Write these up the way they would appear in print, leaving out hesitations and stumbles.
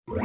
Eng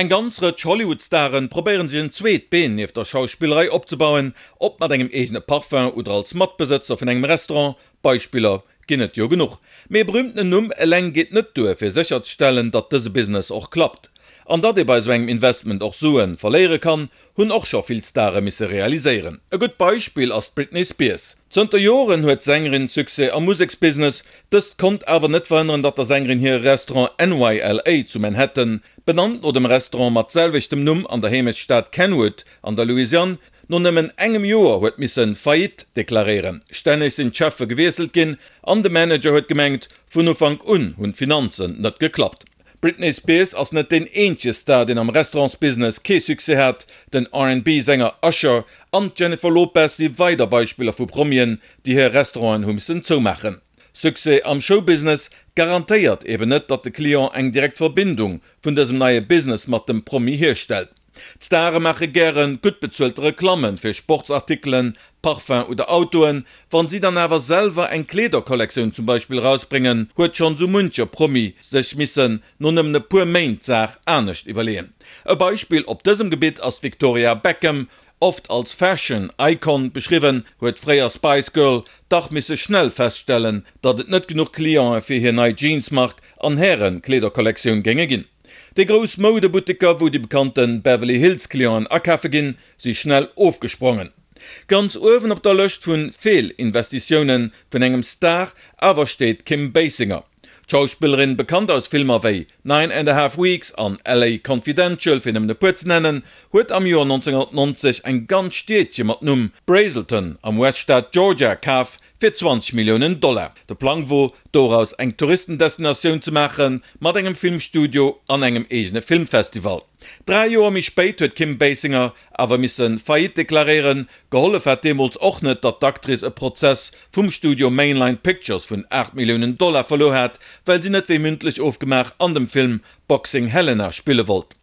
ganz Rëtsch Hollywood-Staren probéieren sech en zweet Been nieft der Schauspillerei opzebauen, ob mat engem eegene Parfum oder als Matbesëtzer vun engem Restaurant, Beispiller ginn et jo genuch. Mee e berühmtenen Numm eleng geet net duer fir sécherzestellen, datt dëse Business och klappt. An datt ee bei esou engem Investment och Sue verléiere kann, hunn och scho vill Stare misse realiséieren. E gutt Beispill ass d'Britney Spears. Zënter Joren huet d'Sängerin Succès am Museksbusiness. Dëst konnt awer net verhënneren, datt der Sängerin hire Restaurant NYLA zu Manhattan, benannt no dem Restaurant mat selwechtem Numm an der Heemechtsstad Kenwood an der Louisiane, no nëmmen engem Joer huet misse Faillite deklaréieren. Stänneg sinn d'Cheffe gewiesselt ginn an de Manager huet gemengt, vun Ufank un hunn d'Finanzen net geklappt. D'Britney Spears ass net deen eenzege Star, deen am Restaurantsbusiness kee Succès hat. Den R&B-Sänger Usher an d'Jennifer Lopez si weider Beispiller vu Promien, déi hir Restauranten hu missen zoumaachen. Succès am Showbusiness garantéiert eben net, datt de Client eng direkt Verbindung vun dësem neie Business mat dem Promi hierstellt. D'Stare maache gäre gutt bezuelte Reklamme fir Sportsartikelen, Parfum oder Autoen. Wann si dann awer selwer eng Kleederkollektioun zum Beispill erausbréngen, huet schonn sou muncher Promi sech missen no nëmmen e puer Méint d'Saach anescht iwwerleeën. E Beispill op dësem Gebitt ass d'Victoria Beckham. Oft als Fashion Icon beschriwwen, huet d'fréier Spice Girl dach misse schnell feststellen, datt et net genuch Cliente fir hir nei Jeansmark an Häre-Kleederkollektioun géinge ginn. Déi grouss Moudebutteker, wou déi bekannte Beverly Hills Clienten akafe ginn, si schnell ofgesprongen. Ganz uewen op der Lëscht vu Feelinvestitioune vun engem Star awer steet d'Kim Basinger. D'Schauspillerin, bekannt aus Filmer wéi Nine and a Half Weeks an LA Confidential, fir nëmmen e puer ze nennen, huet am Joer 1990 eng ganz Stiedche mat Numm Braselton am US-Staat Georgia kaf, fir 20 Milliounen Dollar. De Plang wor, doraus eng Touristendestinatioun ze maache mat engem Filmstudio an engem eegene Filmfestival. Dräi Joer méi spéit huet d'Kim Basinger awer misse Faillite deklaréieren. Gehollef hat deemools och net, datt d'Actrice e Prozess vum Studio Mainline Pictures vun 8 Milliounen Dollar verluer hat, well si net wéi mündlech ofgemaach an dem Film Boxing Helena spille wollt.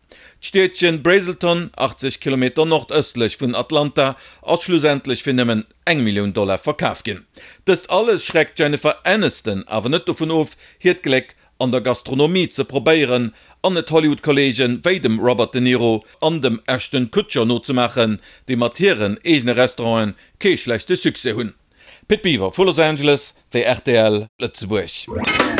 D'Stiedchen Braselton, 80 Kilometer nordëstlech vun Atlanta, ass schlussendlech fir nëmmen eng Millioun Dollar verkaf ginn. Dëst alles schreckt d'Jennifer Aniston awer net dovun of, hiert Gléck an der Gastronomie ze probéieren an et Hollywood-Kolleege wéi dem Robert De Niro an dem Ashton Kutcher nozemaachen, déi mat hiren eegene Restauranten kee schlechte Succès hunn. Pit Biwer vu Los Angeles fir rtl Lëtzebuerg.